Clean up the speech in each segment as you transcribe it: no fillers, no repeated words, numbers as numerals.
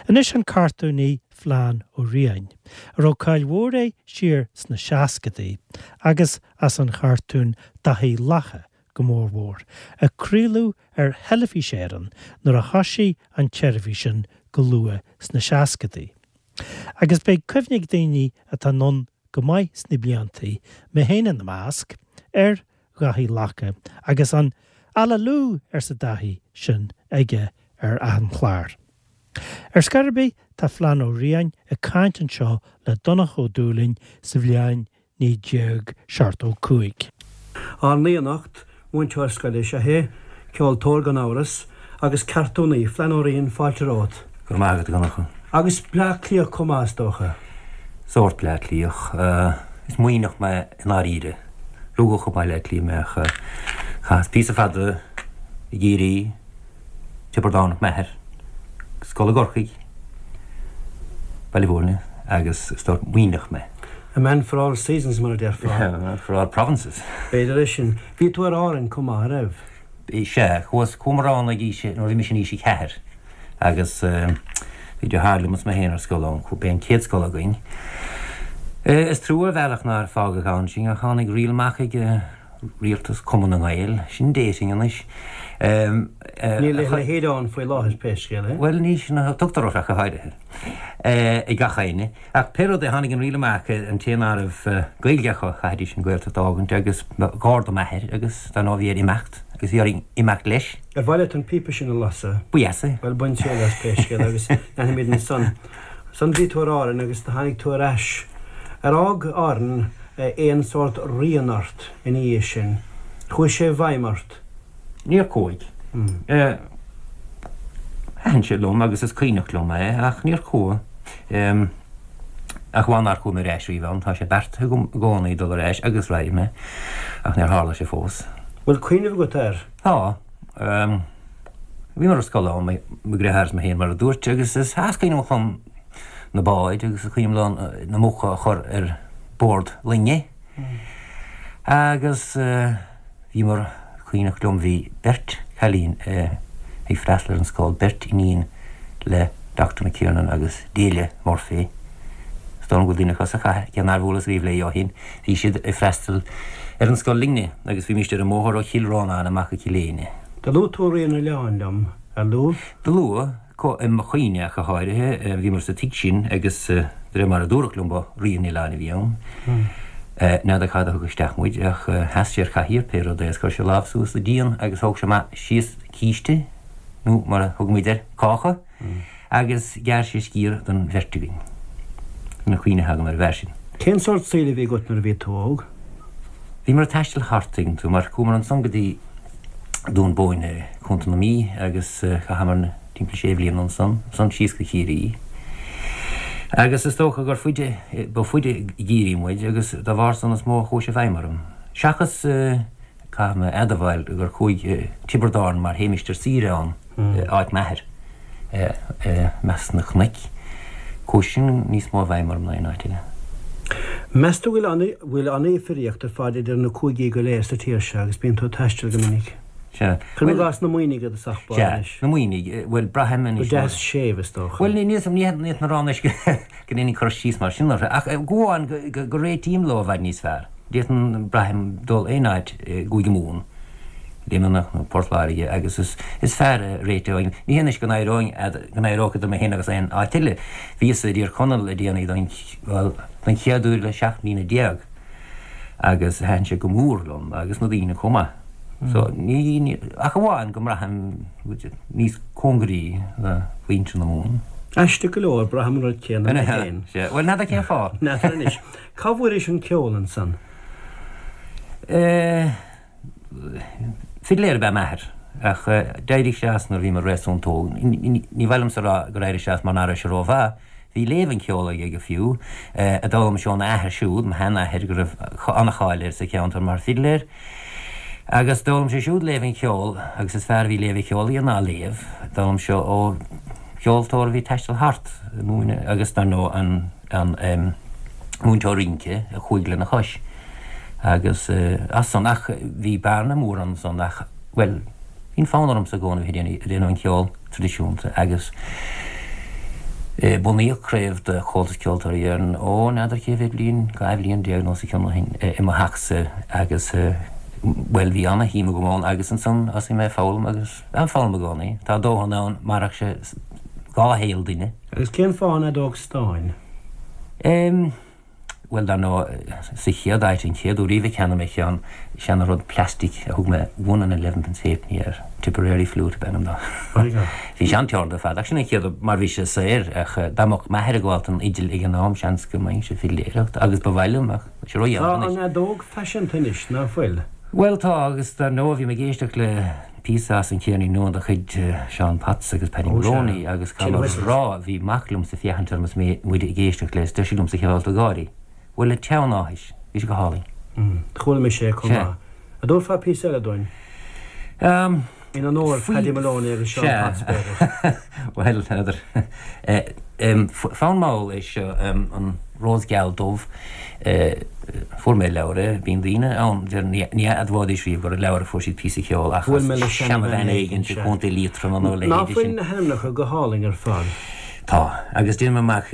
Anois an cartúnaí Flann Ó Riain, a raibh cáil mhór air siar sna seascadaí, agus as an chartún Daithí Lacha go mórmhór, a craoladh ar Theilifís Éireann nuair a thoisigh an tseirbhís sin go luath sna seascadaí. Agus beidh cuimhne ag daoine atá anonn go maith sna bliantaí, mé féin ina measc, ar Dhaithí Lacha agus an 'Alalú! arsa Daithí sin aige ar achan chlár. Ar scor ar bith, tá Flann Ó Riain ag caint anseo le Donncha Ó Dúlaing sa bhliain 1975. Ár n-aoi anocht, múinteoir scoile is ea é, ceoltóir gan amhras, agus cartúnaí, Flann Ó Riain, fáilte romhat. Go raibh maith agat, a Dhonncha. Agus Bleá Cliathach chomh maith, is dócha. Sórt Bleá Cliathach. Is Muimhneach mé i ndáiríre. Rugadh i mBaile Átha Cliath mé ach chaitheas píosa fada i gCiarraí, Tiobraid Árann m'athair, scoil i gCorcaigh, Baile Bhúirne agus is sórt Muimhneach mé. A man for all seasons mar a déarfá. A man for all provinces. B'fhéidir é sin. Bhí tú ar Árainn chomh maith, a raibh? Sea, chuas, chuamar ann ag aois, nuair a bhí mise in aois a ceathair agus bhí deartháir liom is mé féin ar scoil ann, b'é an chéad scoil againn. Is trua ar bhealach nár fágadh ann sinn ach tháinig riail amach ag Rialtas Cumann na nGael, sin dating anois. Níl a leithéid ann faoi láthair pé scéal é. Bhuel ní sin a tugtar orthu ach go háirithe ag gach éinne. Ach pé rud é tháinig an riail amach an té ná raibh Gaeilge acu chaithfidís an Ghaeltacht a fhágaint agus ba ghar do m'athair agus dar ndóigh bhí air imeacht agus bhí orainn imeacht leis. Ar mhaith leat an píopa sin a lasadh? Ba dheas é. Bhuel bain triail as pé scéal é agus leanfaimid ansan. Ansan bhí tú ar Árainn agus do tháinig tú ar ais. Ar fhág Árainn aon sórt rian ort ina dhiaidh sin? Chuaigh sé i bhfeidhm ort? Níor chuaigh. Thaitin sé liom agus is cuimhneach liom é ach níor chuaigh. Ach amháin nár chuaigh mé ar ais riamh ann. Tá sé beartaithe agam i gcónaí dul ar ais agus raghaidh mé ach níor tharla sé fós. Bhfuil cuimhneamh agat air? Tá. Bhíomar ar scoil ann, mo dheartháir is mé féin mar a dúirt, agus is cuimhin liom na báid agus is cuimhin liom na muca a chur ar bord loinge. Agus bhíomar, cuimhneach liom, bhí beirt chailín ag freastal ar an scoil, beirt iníon le Doctor McKiernan agus Delia Murphy. Is dóigh liom go bhfuil duine acu sa chathair, cé nár bhuaileas riamh léi ó shin. Bhí siad ag freastal ar an scoil linne agus bhímíst ar an mbóthar ó Chill Rónáin amach go Cill Éinne. Do luaigh tú Rí an Oileáin liom, ar luaigh? Do luaigh, i mo chuimhne ach go háirithe. Bhíomar sa tigh sin agus de réir mar a dúradh liom ba Rí an Oileáin a bhí ann. N'fheadar cad a thug isteach muid ach sheas sé ar chathaoir pé rud é agus chuir sé a lámh suas sa díon agus thóg sé amach síos císte nó mar a thugaimid air, cáca. Agus ghearr sé sciar don bheirt againn. Sin an chuimhne atá agam ar an bhfear sin. Cén sórt saoil a bhí agat nuair a bhí tú óg? Bhíomar ag taisteal thart, tuigeann tú, mar chuamar ansan go dtí Dún Bóinne, Contae na Mí, agus chaitheamar timpeall sé bhliana ansan, ansan síos go Ciarraí. Agus is dócha gur faide, ba faide i gCiarraí muid agus dá bharr san is mó a chuaigh sé i bhfeidhm orm. Seachas, caithfidh mé a admháil gur chuaigh Tiobraid Árann mar théimist ar saoire ann, áit m'athair, i measc na cnoic. Chuaigh sin níos mó i bhfeidhm orm ná aon áit eile. Meas tú go bhfuil an-difríocht ar fad idir na cúigí go léir sa tír seo agus bíonn tú ag taisteal go minic? Sea. Cuirim i gcás na Muimhnigh i dtosach báire anois. Sea, na Muimhnigh. Bhuel, braithim anois. Go deas séimh, is dócha. Bhuel, ní fhéadfainn a rá anois go ndéanfainn cur síos mar sin orthu, ach go amháin go réitím leo i bhfad níos fearr. D'fhéadfainn, braithim, dul aon áit i gCúige Mumhan. Luimneach nó Port Láirge agus is is fearr a réiteoinn. Ní hé anois go n-éireoinn go n-éireodh idir mé féin agus aon áit eile. Bhíos i dTír Chonaill le déanaí don bhuel don chéad uair le 17 mbliana agus thaitin sé go mór liom agus na daoine chomh maith. So ní ní ach amháin go mbraithim níos cóngaraí le muintir na Mumhan. Aisteach go leor, braithim an rud céanna mé féin. Sea, bhuel n'fheadar cén fáth. N'fheadar anois. Cá bhfuairis an ceol ansan? Eh. Fidléir ab ea m'athair, ach d'éirigh sé as nuair a bhí mé réasúnta óg. Ní mhaith liomsa a rá gur éirigh sé as mar nach raibh sé rómhaith. Bhí léamh an cheoil aige go fiú, a d'fhoghlaim sé óna athair siúd, mo sheanathair, go raibh an-cháil air sa cheantar mar fhidléir. Agus d'fhoghlaim sé siúd léamh an cheoil, agus is fearr a bhí léamh an cheoil aige ná léamh. D'fhoghlaim sé ó cheoltóir a bhí ag taisteal thart, ag múineadh, agus dar ndóigh an. an múinteoir rince a chuaigh lena chois agus as san ach bhí bearna mór ansan ach, bhuel, bhí an fonn ormsa i gcónaí bheith ag déanamh an cheol traidisiúnta agus. Bunaíodh craobh de Chomhaltas Ceoltóirí Éireann, ó, n'fheadar cé mhéad bliain, 12 bhliain nó os a chionn ó shin, i mo theachsa agus, bhuel, bhí ana-shuim agam ann agus ansan thosaigh mé ag foghlaim agus ag foghlaim i gcónaí. Tá dóthain ann, mairfeadh sé dhá shaol duine. Agus cén fáth an fheadóg stáin? Em. Bhuel, dar ndóigh, sa chéad áit, an chéad uair riamh a cheannaigh mé ceann, seana-rud plastic a thug mé one and elevenpence halfpenny air, Tipperary Flute ab ainm dó. Bhí sé an-teoranta ar fad, ach sin an chéad, mar bhí sé saor, ach dá mbeadh m'athair ag gabháil don fhidil ag an am, seans go mbeinnse ag fidléireacht, agus ba mhaith liom, ach tá sé ródhéanach Tá an anois. fheadóg faiseanta anois, ná fuil? Bhuel, tá, agus dar ndóigh, bhí mé ag éisteacht le píosa as an Cheirnín Nua de chuid Seán Potts agus Paddy Moloney agus caithfidh mé a rá, bhí mac liomsa ag féachaint orm is mé, muid ag éisteacht leis, deir sé liomsa cé fáilte gáirí. Bhuel, le teann áthais, bhí sé go hálainn. Chuala mise é chomh maith. An dtabharfá píosa eile dúinn? In onóir Paddy Moloney agus Seán Potts, b'fhéidir. Bhuel, n'fheadar. Fonn mall é seo, an Rós Geal Dubh. Fuair mé leabhar é. Bíonn daoine ann, deir, ní admhóidís riamh gur i leabhar a fuair siad píosa ceoil ach as seanabhean éigin i gContae Liatroma nó a leithéide sin. Ná fuil na hainmneacha go hálainn ar fad? Tá, agus déanaim amach,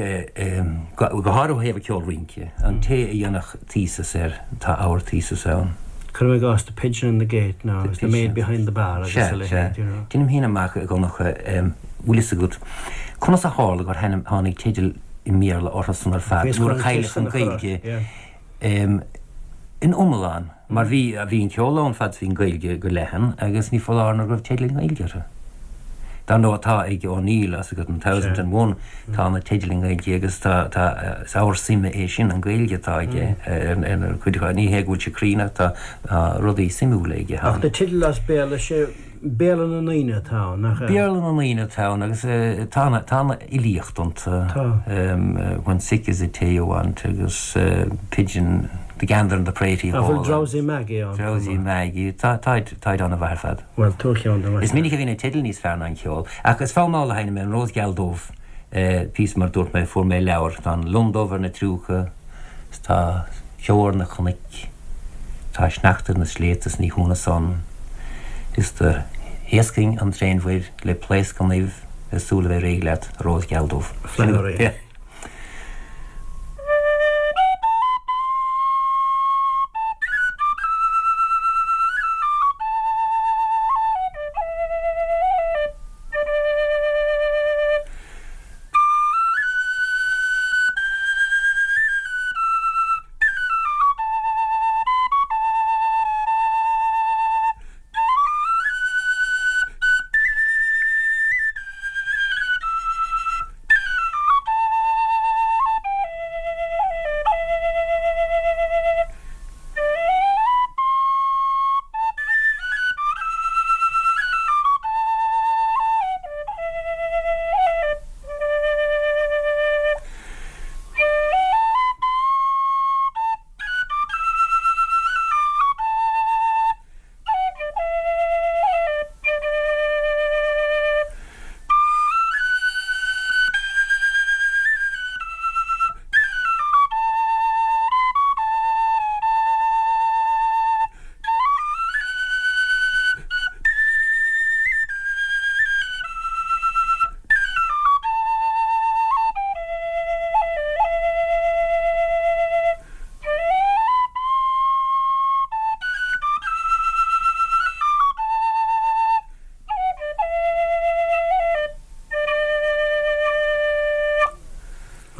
go háirithe ó thaobh an ceol rince, an té a dhéanfadh thesis air, tá ábhar thesis ann. Cuirim i gcás The Pigeon and the Gate nó The Maid Behind the Bar agus a leithéid, you know. Déanaim féin amach, a Dhonncha, bhfuil fhios agat, conas a tharla gur tháinig teidil i mBéarla orthu san ar fad nuair a cailleadh an Ghaeilge in iomlán, mar bhí, bhí an ceol ann fad is bhí an Ghaeilge go leathan agus ní foláir nó go raibh teidil i nGaeilge orthu. Dar ndóigh tá ag O'Neill, tá fhios agat, an Thousand and One, tá na teidil i nGaeilge agus tá, tá, is ábhar suime é sin, an Ghaeilge atá aige ar ar chuid acu. Ní hé go bhfuil sé cruinn ach tá rudaí suimiúla aige ann. Ach na teidil as Béarla, sé Béarla na ndaoine atá ann, nach ea? Béarla na ndaoine atá ann agus tá an, tá an fhilíocht iontu. Tá. When Sick is the Tea You Want agus Pigeon, The Gander and the Pratie Hall. An bhfuil Drowsy Maggie ann chomh maith? Drowsy Maggie, tá, táid, táid an-mhaith ar fad. Bhuel, tabhair ceann dom. Is minic a bhíonn na teidil níos fearr ná an ceol. Ach is fonn mall a sheinnim é, An Rós Geal Dubh, píosa mar dúirt mé, fuair mé leabhar, tá an Lon Dubh ar na triúcha, is tá ceo ar na cnoic, tá sneachta ar na sléibhte is ní hionadh san, is do thaoscfainn an tréanmhuir le pléasc an uibh ag súil a bheith réidh leat, a Rós Gheal Dubh. Flannery.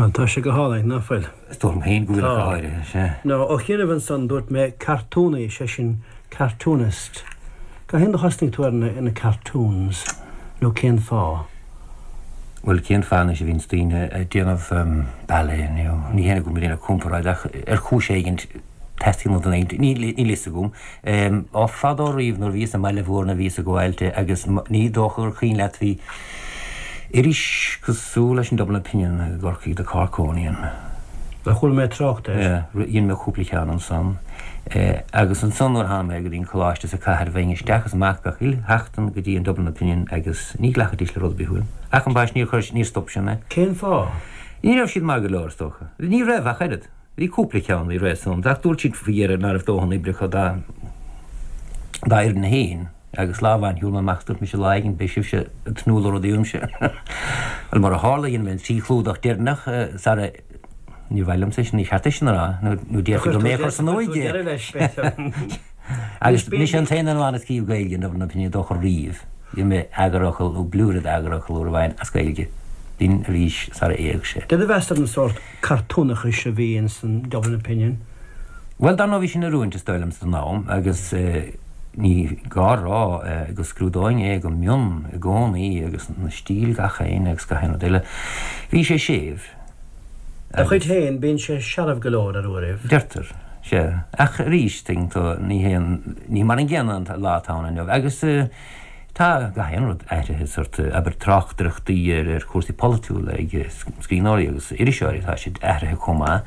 Bhuel, tá sé go hálainn, ná fuil? Is dóigh liom féin go bhfuil ach go háirithe, sea. Nó, ó chianaibh ansan, dúirt mé cartúnaí, sé sin cartoonist. Cathain a thosnaigh tú ar na cartoons, nó cén fáth? Bhuel, cén fáth anois a bhíonns daoine ag déanamh ballet nó ní hé go bhfuil mé ag déanamh comparáid ach ar chúis éigin teastaíonn ó dhuine éigin, níl a fhios agam. Ó fadó riamh nuair a bhíos i mBaile Mhúirne bhíos ag gabháil de agus ní dócha gur cuimhin leat bhí iris cosúil leis an Dublin Opinion i gCorcaigh, The Corkonian. Bhuel, chuala mé trácht air. Dhein mé cúpla ceann ansan. Agus ansan nuair a tháinig mé go dtí an coláiste sa chathair bheinn isteach is amach gach uile sheachtain go dtí an Dublin Opinion agus ní ghlacfaidís le rud ar bith uaim. Ach ambaist níor chuir, níor stop sin mé. Cén fáth? Ní raibh siad maith go leor, is dócha. Ní raibh ach oiread. Bhí cúpla ceann a bhí réasúnta ach dúirt siad faoi dheireadh ná raibh dóthain oibre acu dá dá fhoireann féin. Agus lá amháin shiúil mé amach is dúirt mise lá éigin beidh sibhse ag tnúth le rudaí uaimse. Bhuel mar a tharla dhein mé an trí chlúdach deireanach sara níor mhaith liomsa é sin, ní cheart é sin a rá nó déarfaí gur mé a chuir san uaigh é. Agus mise an t-aon duine amháin a scríobh Gaeilge in Dublin Opinion is dócha riamh. Dhein mé eagarfhocal nó blúire d'eagarfhocal uair amháin as Gaeilge. B'in arís sara éag sé. Cad a mheas tú ar an sórt cartúnachais a bhí ins an Dublin Opinion? Bhuel, dar ndóigh bhí sin in oiriúint is dóigh liomsa don am agus ní gá a rá go scrúdóinn é go mion i gcónaí agus na stíl gach aon agus gach aon rud eile. Bhí sé séimh Dá chuid féin, bíonn sé searbh go leor ar uairibh. Deirtear, sea. Ach arís, tuigeann tú, ní hé an, ní mar an gcéanna an lá atá ann inniu. Agus tá gach aon rud athraithe, sórt, abair, tráchtaireachtaí ar ar chúrsaí polaitiúla ag scríbhneoirí agus iriseoirí, tá siad athraithe chomh maith.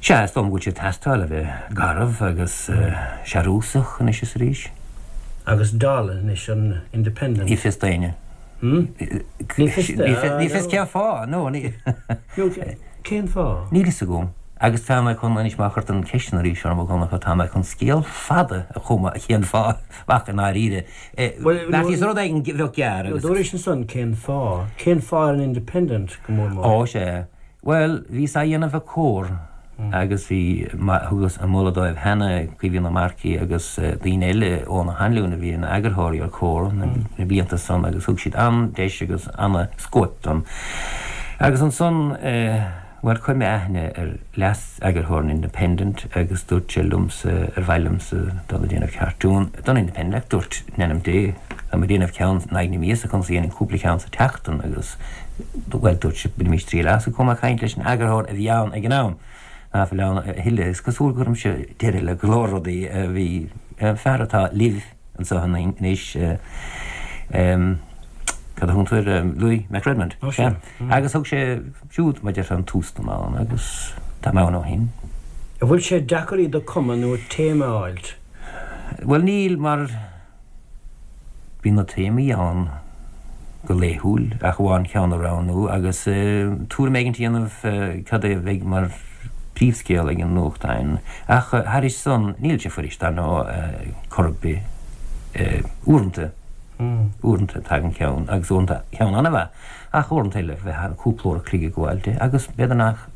Sea, is dóigh liom go bhfuil sé ag teastáil a bheith garbh agus searúsach anois is arís. Agus dall anois an Independent. Ní fios d'éinne. Ní fios Ní fios cén fáth, nó ní. Nó cén fáth? Níl fhios agam. Agus tá mé chun, anois má chuir tú an cheist sin arís orm, a Dhonncha, tá mé chun scéal fada a chumadh cén fáth, ach i ndáiríre, bheartaíos rud éigin bheadh gearr agus. Dúraís ansan cén fáth. Cén fáth ar an Independent go mór mór? Ó, sea. Bhuel, bhíos á dhéanamh ag Comhar agus bhí, thugas an moladh dóibh cheana, Caoimhín Ó Marcaigh agus daoine eile, Eoghan Ó hAinliúin a bhí ina eagarthóirí ar Comhar na blianta san agus thug siad an-deis agus an-scóip dom. Agus ansan, bhuel, chuir mé aithne ar leas-eagarthóir an Independent agus dúirt sé liomsa ar mhaith liomsa dul ag déanamh cartún don Independent ach dúirt, in ainm Dé, tá mé ag déanamh ceann in aghaidh na míosa, conas a dhéanfainn cúpla ceann sa tseachtain agus Bhuel, dúirt sé, bainimis triail as. Chuaigh mé ag caint leis an eagarthóir a bhí ann ag an am, ná fuil ann a thuilleadh. Is cosúil go gcuirimse deireadh le go leor rudaí a bhí, fear atá libh anseo anois, cad a thugann tú air, Louis McRedmond. Ó, sea. Agus thug sé siúd, mar a déarfá, an tús dom ann agus tá mé ann ó shin. An bhfuil sé deacair iad a cumadh nó téama a fháilt? Bhuel, níl, mar. Bíonn na téamaí ann go laethúil, ach amháin ceann a roghnú agus tuairim éigin a dhéanamh cad é a bheidh mar phríomhscéal ag an nuachtán. Ach thairis san, níl sé fuirist, dar ndóigh, chor ar bith. Uaireanta, uaireanta tagann ceann, agus uaireanta ceann an-mhaith, ach uaireanta eile bheifeá cúpla uair a chloig ag gabháil de, agus b'fhéidir nach.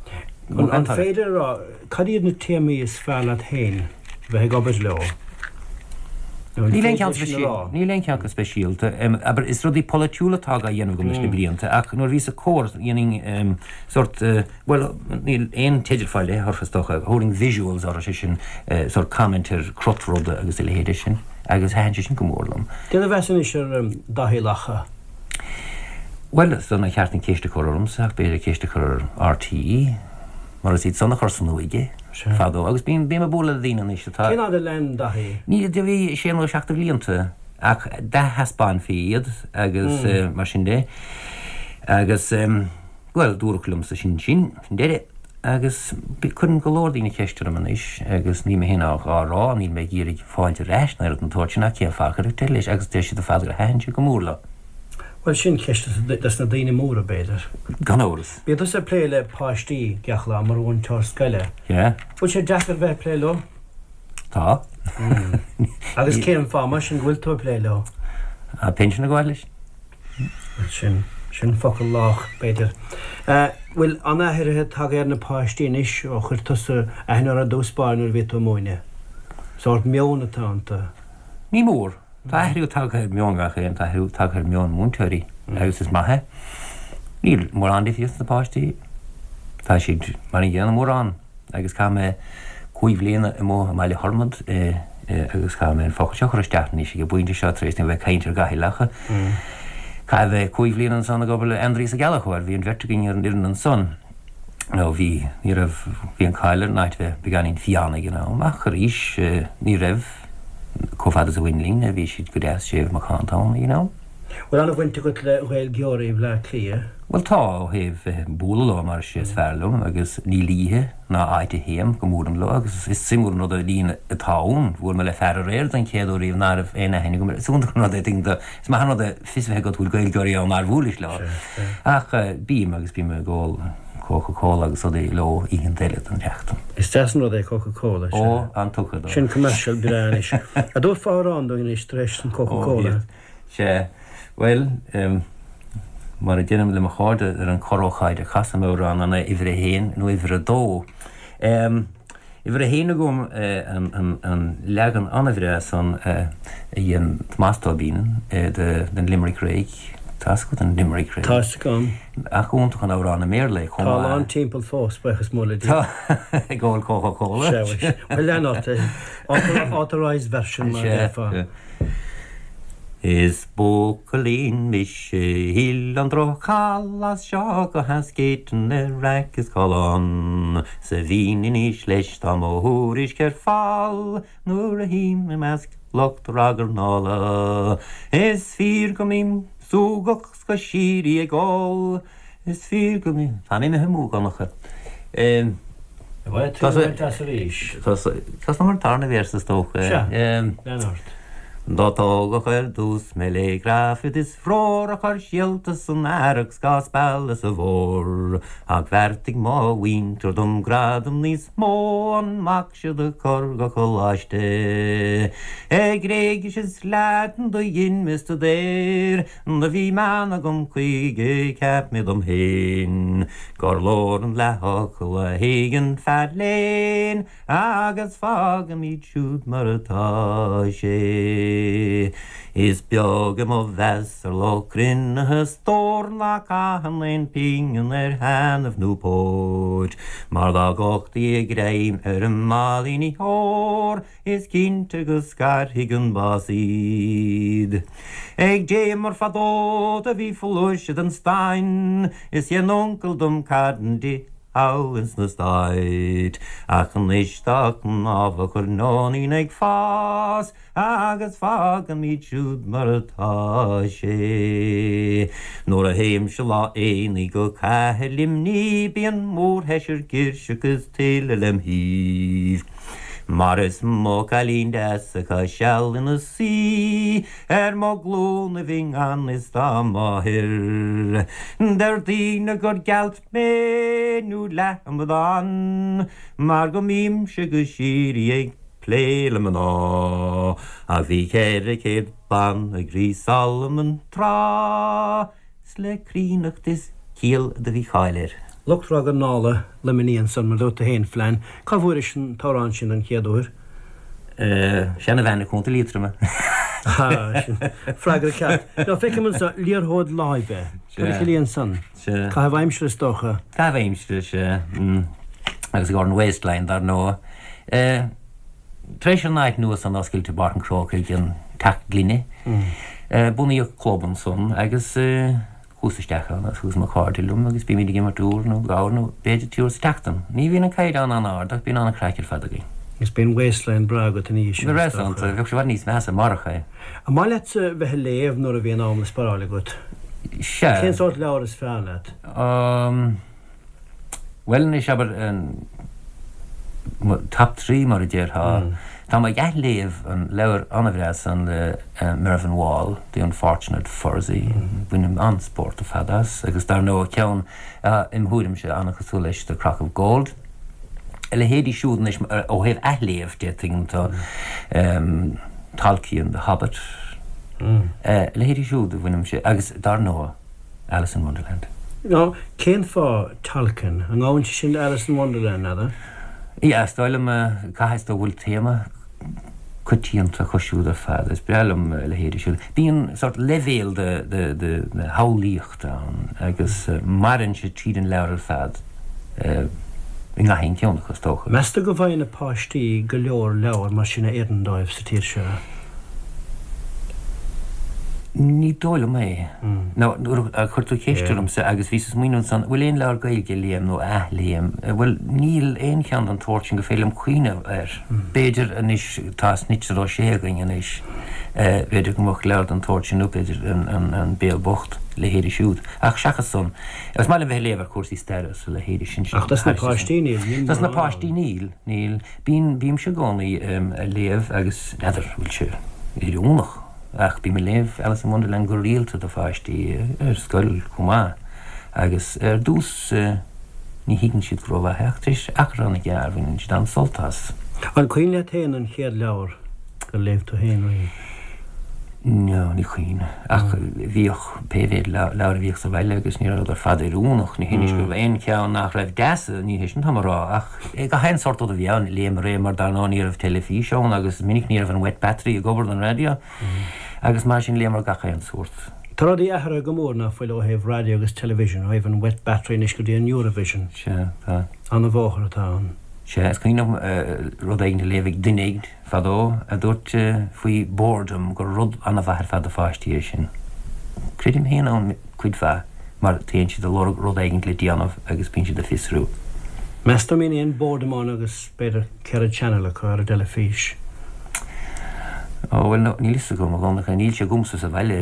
An féidir a rá cad iad na téamaí is fearr leat féin? bheith ag obair leo. Nó an Níl aon féidir cheann sin a rá? Níl aon cheann go speisialta. Abair, is rudaí polaitiúla atá á dhéanamh agam leis na blianta, ach nuair a bhíos ag Comhar, dhéanainn sórt, bhuel, níl aon teideal fá leith orthu is dócha, thabharfainn visuals orthu, sé sin, sórt comment ar crot ruda agus a leithéide sin, agus thaitin sé sin go mór liom. Céard a mheas anois ar Daithí Lacha? Bhuel, is dóigh nár cheart an ceist a chur ormsa, ach b'fhéidir ceist a chur ar RTÉ. Mar is iad san a chuir san uaigh é fadó agus bím ag bualadh le daoine anois atá. Cén fhad a lean Daithí? Ní, do bhí sé nó seacht de bhlianta ach d'ath-thaispeánfaí iad agus mar sin de agus bhuel dúradh liomsa sin sin, sin deireadh agus cuireann go leor daoine ceist orm anois agus níl mé féin á rá, níl mé ag iarraidh fáilte ar ais ná rud den tsórt sin ach cén fáth a cuireadh deireadh leis agus deir siad ar fad gur thaitin sé go mór leo. Bhuel sin ceist dos na daoine móra b'fhéidir. Gan amhras. Bíonn tusa ag plé le páistí gach lá mar mhúinteoir scoile. Yeah. Bhfuil sé deacair bheith ag plé leo? Tá. Agus cén fáth mar sin go bhfuil tú ag plé leo? Tá pinsean ag gabháil leis. Bhuel sin, sin focal lách b'fhéidir. Bhfuil an-athruithe tagtha ar na páistí anois ó chuir tusa aithne orthu i dtús báire nuair a bhí tú ag múineadh? Sórt meon atá iontu. Ní mór. Tá athrú tagtha ar mheon gach aon, tá athrú tagtha ar mheon múinteoirí agus is maith é. Níl mórán difríocht sna páistí, tá siad mar an gcéanna mórán agus chaith mé cúig bhliana amuigh i mBaile Thormod agus caithfidh mé an focal seo a chur isteach anois ag an bpointe seo tar éis dom a bheith ag caint ar Dhaithí Lacha. Caithfidh mé cúig bhliana ansan ag obair le Aindrias Ó Gallchóir, bhí an bheirt againn ar an fhoireann ansan. Nó bhí, ní raibh, bhí an cáil ar an áit bheith beagáinín fiáin ag an am ach arís ní raibh. Chomh fada is a bhain linn, bhí siad go deas séimh macánta ann ag an am. Bhfuil an-bhaint agat le Gaeilgeoirí Bhleá Cliath? Bhuel tá, ó thaobh bheith ag bualadh leo mar is é is fearr liom agus níl oíche ná áit a théim go mbuailim leo agus is suimiúil an rud an líon atá ann. Bhuail mé le fear aréir don chéad uair riamh ná raibh aon aithne agam air. Is iontach an rud é, tuigeann tú, is maith an rud é fios a bheith agat go bhfuil Gaeilgeoirí ann nár bhuailis leo. Ach bím agus bím ag ól. Coca Cola agus rudaí leo oícheanta eile den tseachtain. Is deas an rud é Coca Cola, sea. Ó, an-tugtha dó. Sin commercial breá anois. An dtabharfá amhrán dúinn anois tar éis an Coca Cola? Ó, sea. Bhuel, mar a deirim le mo chairde ar an corr-ócáid a chasaim amhrán an é uimhir a haon nó uimhir a dó. Uimhir a haon agam an leagan an-bhreá san a dhein Tomás Tóibín den Limerick Rag. Tá's agat an Limerick Rag? Tá's agam. Ach iontach an amhrán i mBéarla é chomh maith. Tá a lán timpeall fós, buíochas mór le Dia. Tá, ag ól Coca Cola. Sea, bhuel, lean ort. Authorised version mar a déarfá. Is buachaillín mise a thuill an droch-cháil as seo go hAskeaton ar raic is callán 's a bhínn in aois leis tá mo thuairisc ar fáil nuair a théim i measc lucht ragairneála. Is fíor go mbím súgach 's go síoraí ag ól Is fíor go mbím, táim imithe amú, a Dhonncha. Bhuel, tú ag baint as arís. Tosnaím ar an tarna véarsa is dócha. Sea, lean ort. Do tógadh ar dtús mé lé grafad is ror a chur síolta san earrach 's dhá spealadh sa bhfómhar. Ach bheartaigh mo mhuintir dom gradam níos mó an mac seo do chur go coláiste. Gréigis is Laidin do dhein mé stuidéar Do bhí meon agam chuige, cheap mé dom féin gur leor an leathfhocal a thuigeann fear léinn agus fágfaimid siúd mar atá sé. Is beag é mo mheas ar lucht cruinnithe stór ná caitheann aon phingin ar thaitneamh nó póit, mar dá gcumhachtaí a greim ar a máilíní óir, Is cinnte go scarfaidh an bás iad. Ag Dé mar fadó do bhí flúirse den stain is dhein uncail dom carn di thall ins na Stáit. Ach anois tá cnámha coirneoinín ag fás agus fágfaimid siúd mar atá sé. Nuair a théimse lá aonaigh go cathair Luimnigh bíonn mórsheisear girseach is tuilleadh lem thaobh. Mar is mo chailín deas atá seal ina suí ar mo ghlúinibh i ngan fhios dá máthair. Deir daoine gur gealt mé nó leath-amadán mar go mbímse go síoraí ag plé le mná. Ach bhí 400 bean ag Rí Solomon tráth. 's le críonnacht is ciall do bhí cáil air. Lucht ragairneála Luimnigh ansan, mar dúirt tú féin, Flann. Cá bhfuairis an t-amhrán sin don chéad uair? Seanabhean i gContae Liatroma. Ha, sin freagra ceart. Now, feicim anso liathróid láimhe. Cad a chiallaíonn san? Caitheamh aimsire is dócha. Caitheamh aimsire, sea. Agus ag an Waistline, dar ndóigh. Tar éis an áit nua san oscailt i bPáirc an Chrócaigh, an Teach Gloine, bunaíodh club ansan agus chuas isteach ann agus chuas mo chairde liom agus bímid ag imirt uair nó dhá uair nó b'fhéidir trí huaire sa tseachtain. Ní bhíonn an caighdeán an-ard ach bíonn an-chraic ar fad againn. Agus bíonn waistline breá agat ina dhiaidh sin, is dócha. Bheadh sé i bhfad níos measa marach é. An maith leatsa bheith ag léamh nuair a bhíonn am le sparáil agat? Sea. Cén sórt leabhar is fearr leat? Bhuel anois, abair, mo top 3 mar a déarfá. Tá mé ag athléamh an leabhar an-bhreá san le Mervyn Wall, The Unfortunate Fursey. Bainim an-spórt ar fad as. Agus dar ndóigh ceann, im thuairimse, an-chosúil leis, The Crock of Gold. A leithéidí siúd anois, ó thaobh athléamh de, tuigeann tú, Tolkien, The Hobbit. A leithéidí siúd a bhainimse. Agus dar ndóigh. Alice in Wonderland. Now, cén fáth Tolkien? An ngabhann sé sin le Alice in Wonderland, n'fheadar? Yeah, is dóigh liom, caithfidh go bhfuil téama coitianta acu siúd ar fad. Is breá liom a leithéidí siúd. Bíonn sórt leibhéal de, de, de, de shamhlaíocht ann agus maireann sé tríd an leabhar ar fad i ngach aon cheann acu, is dócha. Meas tú go bhfaigheann na páistí go leor leabhar mar sin a oireann dóibh sa tír seo? Ní dóigh liom é. Nó nuair a chuir tú ceist ormsa agus bhíos ag smaoineamh ansan, bhfuil aon leabhar Gaeilge a léim nó a athléim? Bhuel, níl aon cheann den tsórt sin gur féidir liom cuimhneamh air. B'fhéidir anois, tá Snitzer Ó Sé againn anois, b'fhéidir go mbeadh leabhar den tsórt sin nó b'fhéidir An Béal Bocht, leithéidí siúd. Ach seachas san, is maith liom bheith ag léamh ar chúrsaí staire is a leithéidí sin. Ach dos na páistí níl, níl Dos na páistí níl, níl. Bíonn, bímse i gcónaí ag léamh agus n'fheadar an bhfuil sé oiriúnach ach bím ag léamh Alice in Wonderland go rialta do pháistí ar scoil chomh maith agus ar dtús. Ní thuigeann siad go rómhaith é ach tar éis achar an-ghearr baineann siad an-sult as. An cuimhin leat féin an chéad leabhar gur léigh tú féin riamh? No, ní cuimhin. Ach bhíodh pé mhéad leabhar a bhíodh sa bhaile agus ní rabhadar ar fad oiriúnach. Ní hé go raibh aon cheann nach raibh deas, ní hé sin atá mé a rá, ach gach aon sórt rud a bhí ann, léamar é mar dar ndóigh ní raibh teilifís ann agus is minic ní raibh an wet battery ag obair don raidió agus mar sin léamar gach aon sórt. Tá rudaí athraithe go mór ná fuil ó thaobh raidió agus television, ó thaobh an wet battery anois go dtí an Eurovision. Sea, tá. An-bhóthar atá ann. Sea, is cuimhin liom rud éigin a léamh ag duine éigin fadó a dúirt faoi boredom gur rud an-mhaith ar fad do pháistí é sin. Creidim féin ann cuid mhaith mar téann siad ag lorg rud éigin le déanamh agus bíonn siad ag fiosrú. Meas tú an mbíonn aon boredom ann agus b'fhéidir 4 channel acu ar an dteilifís. Ó, bhuel, níl fhios agam, a Dhonncha. Níl sé agamsa sa bhaile,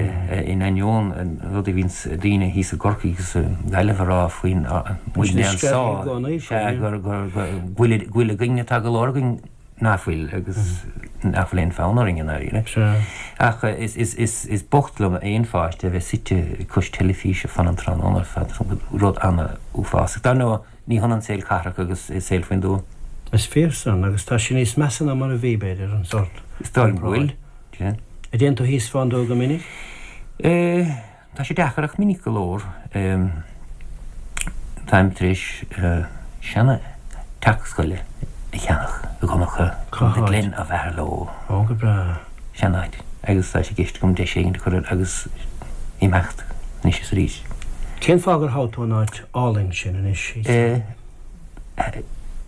in ainneoin an rud a bhíonns daoine thíos i gCorcaigh agus i nGaillimh a rá faoin muidne anso, sea, gur, gur, go bhfuil, go bhfuil againn atá go leor againn nach bhfuil agus nach bhfuil aon fhonn orainn i ndáiríre. Ach is, is, is, is bocht liom aon pháiste a bheith suite cois teilifíse fan an tráthnóna ar fad, rud an-uafásach. Dar ndóigh, Ní hionann saol cathrach agus saol faoin dtuath. Is fíor san, agus tá sé níos measa ná mar a bhí, b'fhéidir, an sórt Is dóigh liom go bhfuil, sea. An dtéann tú thíos fán dtuath go minic? Tá sé deacair ach minic go leor. Táim tar éis seana teach scoile a cheannach i gConncha, Cá The háit? Glen of Aherlow. Ó, go breá. Sean-áit. Agus tá sé i gceist agam deis éigin a chur air agus imeacht anois is arís. Cén fáth gur thogh tú an áit álainn sin anois?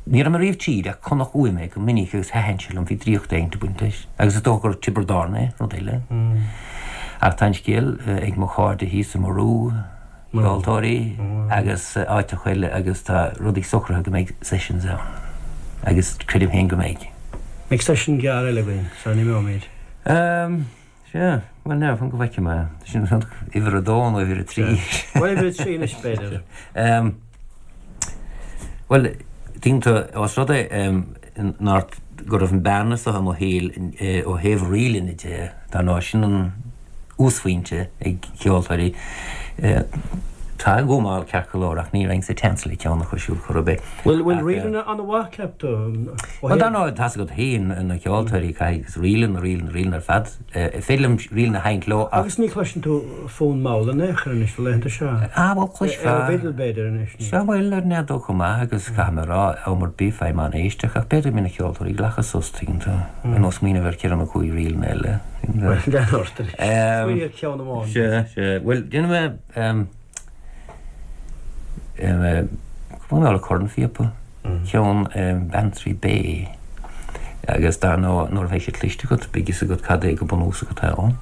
Ní raibh mé riamh tríd ach chonac uaim é go minic agus thaitin sé liom, bhí draíocht éigin ag baint leis. Agus is dócha gur Tiobraid Árann é, rud eile. Ach tá an scéal ag mo chairde thíos i Murú, ceoltóirí agus áiteacha eile agus tá rudaí socraithe go mbeidh sessions ann. Agus creidim féin go mbeidh. Mbeidh session gearr eile againn sara n-imeoimid? Sea, bhuel now, fan go bhfeicfidh mé. Sin uimhir a dó nó uimhir a trí. Bhuel, uimhir a trí anois, b'fhéidir. Bhuel, tuigeann tú, os rud é nár, go raibh an bearna seo i mo shaol ó thaobh ríleanna de, dar ndóigh, sin an uasphointe ag ceoltóirí. Tá ag gabháil ceart go leor ach ní raibh sa tseans le ceann acu siúd chor ar bith. Bhfuil bhfuil ríleanna an-mhaith, ceap tú? Bhuel, dar ndóigh, tá's agat féin, na ceoltóirí, caithfidh ríleanna, ríleanna, ríleanna ar fad. Is féidir liom ríleanna a sheinnt leo ach. Agus ní chloiseann tú fonn mall in aon chor anois na laethanta seo. Ah, bhuel, cloisfeá. Ar an bhfidil, b'fhéidir, anois. Sea, bhuel, ar an fheadóg chomh maith agus caithfidh mé a rá, am ar bith, faighim an-éisteacht ach b'fhéidir go mbíonn na ceoltóirí ag glacadh sos, tuigeann tú, ar nós smaoineamh ar cheithre nó cúig ríleanna eile. Bhuel, lean ort anois. Smaoinigh ar cheann amháin. Sea, sea. Bhuel, déanfaidh mé, Cúpla nóta cornphíopa, ceann Bantry Bay agus dar ndóigh nuair a bheidh sé cloiste agat beidh fhios agat cad é go bunúsach atá ann.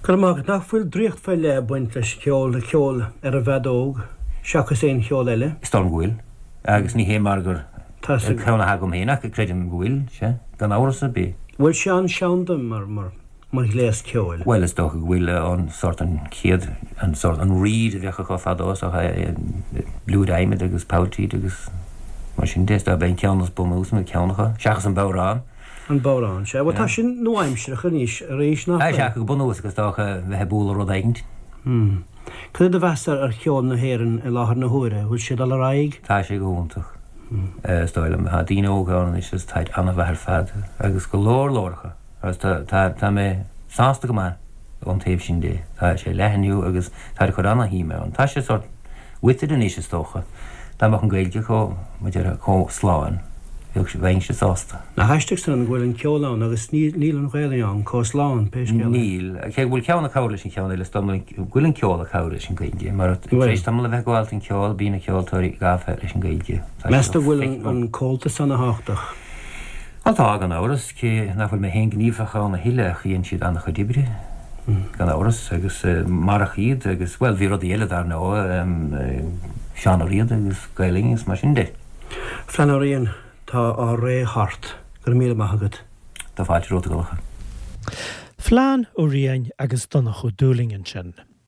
Go raibh maith agat. Nach bhfuil draíocht faoi leith ag baint leis ceol, le ceol ar an bhfeadóg, seachas aon cheol eile? Is dóigh liom go bhfuil. Agus ní hé mar gur ceann atá agam féin ach creidim go bhfuil, sea, gan amhras ar bith. Bhfuil sé an-seanda mar, mar, mar ghléas ceoil? Bhuel, is dócha go bhfuil an sórt an chéad, an sórt, an reed a bheadh acu fadó, is dócha, blúire adhmaid agus polltíd agus mar sin de, is dócha, b'é an ceann is bunúsaí nó ceann acu, seachas an bodhrán. An bodhrán, sea. Bhuel, tá sin nua-aimsearach anois arís, nach bhfuil? Sea, go bunúsach is dócha bheith ag bualadh rud éigint. Hmm. Cad é do mheas ar cheol na hÉireann i láthair na huaire? Bhfuil sé ag dul ar aghaidh? Tá sé go hiontach, is dóigh liom. Tá daoine óga ann anois agus táid an-mhaith ar fad agus go leor leor acu. Agus tá, tá, tá mé sásta go maith ón taobh sin de. Tá sé ag leathnú agus táid ag cur ana-shuim ann. Tá sé sórt withered anois is dócha. Dá mbeadh an Ghaeilge chomh, mar a déarfá, chomh slán, bheadh. Bheadh, bheinnse sásta. Nach aisteach san go bhfuil an ceol ann agus níl an Ghaelainn ann chomh slán, pé scéal é. Níl. Cé go bhfuil ceann ag cabhrú leis an cheann eile, is dóigh liom go bhfuil an ceol ag cabhrú leis an Ghaeilge, mar tar éis tamall a bheith ag gabháil don cheol, bíonn na ceoltóirí gafa leis an Ghaeilge. Meas tú go bhfuil an Comhaltas ana-thábhachtach? Bhuel tá, gan amhras, cé nach bhfuil mé féin gníomhach ann a thuilleadh ach dhein siad an-chuid oibre, gan amhras, agus marach iad agus, bhuel, bhí rudaí eile dar ndóigh, Seán Ó Riada agus Gael Linn agus mar sin de. Flann Ó Riain, tá ár ré thart. Go raibh míle maith agat. Tá fáilte romhat, a Dhonncha. Flann Ó Riain agus Donncha Ó Dúlaing ansin.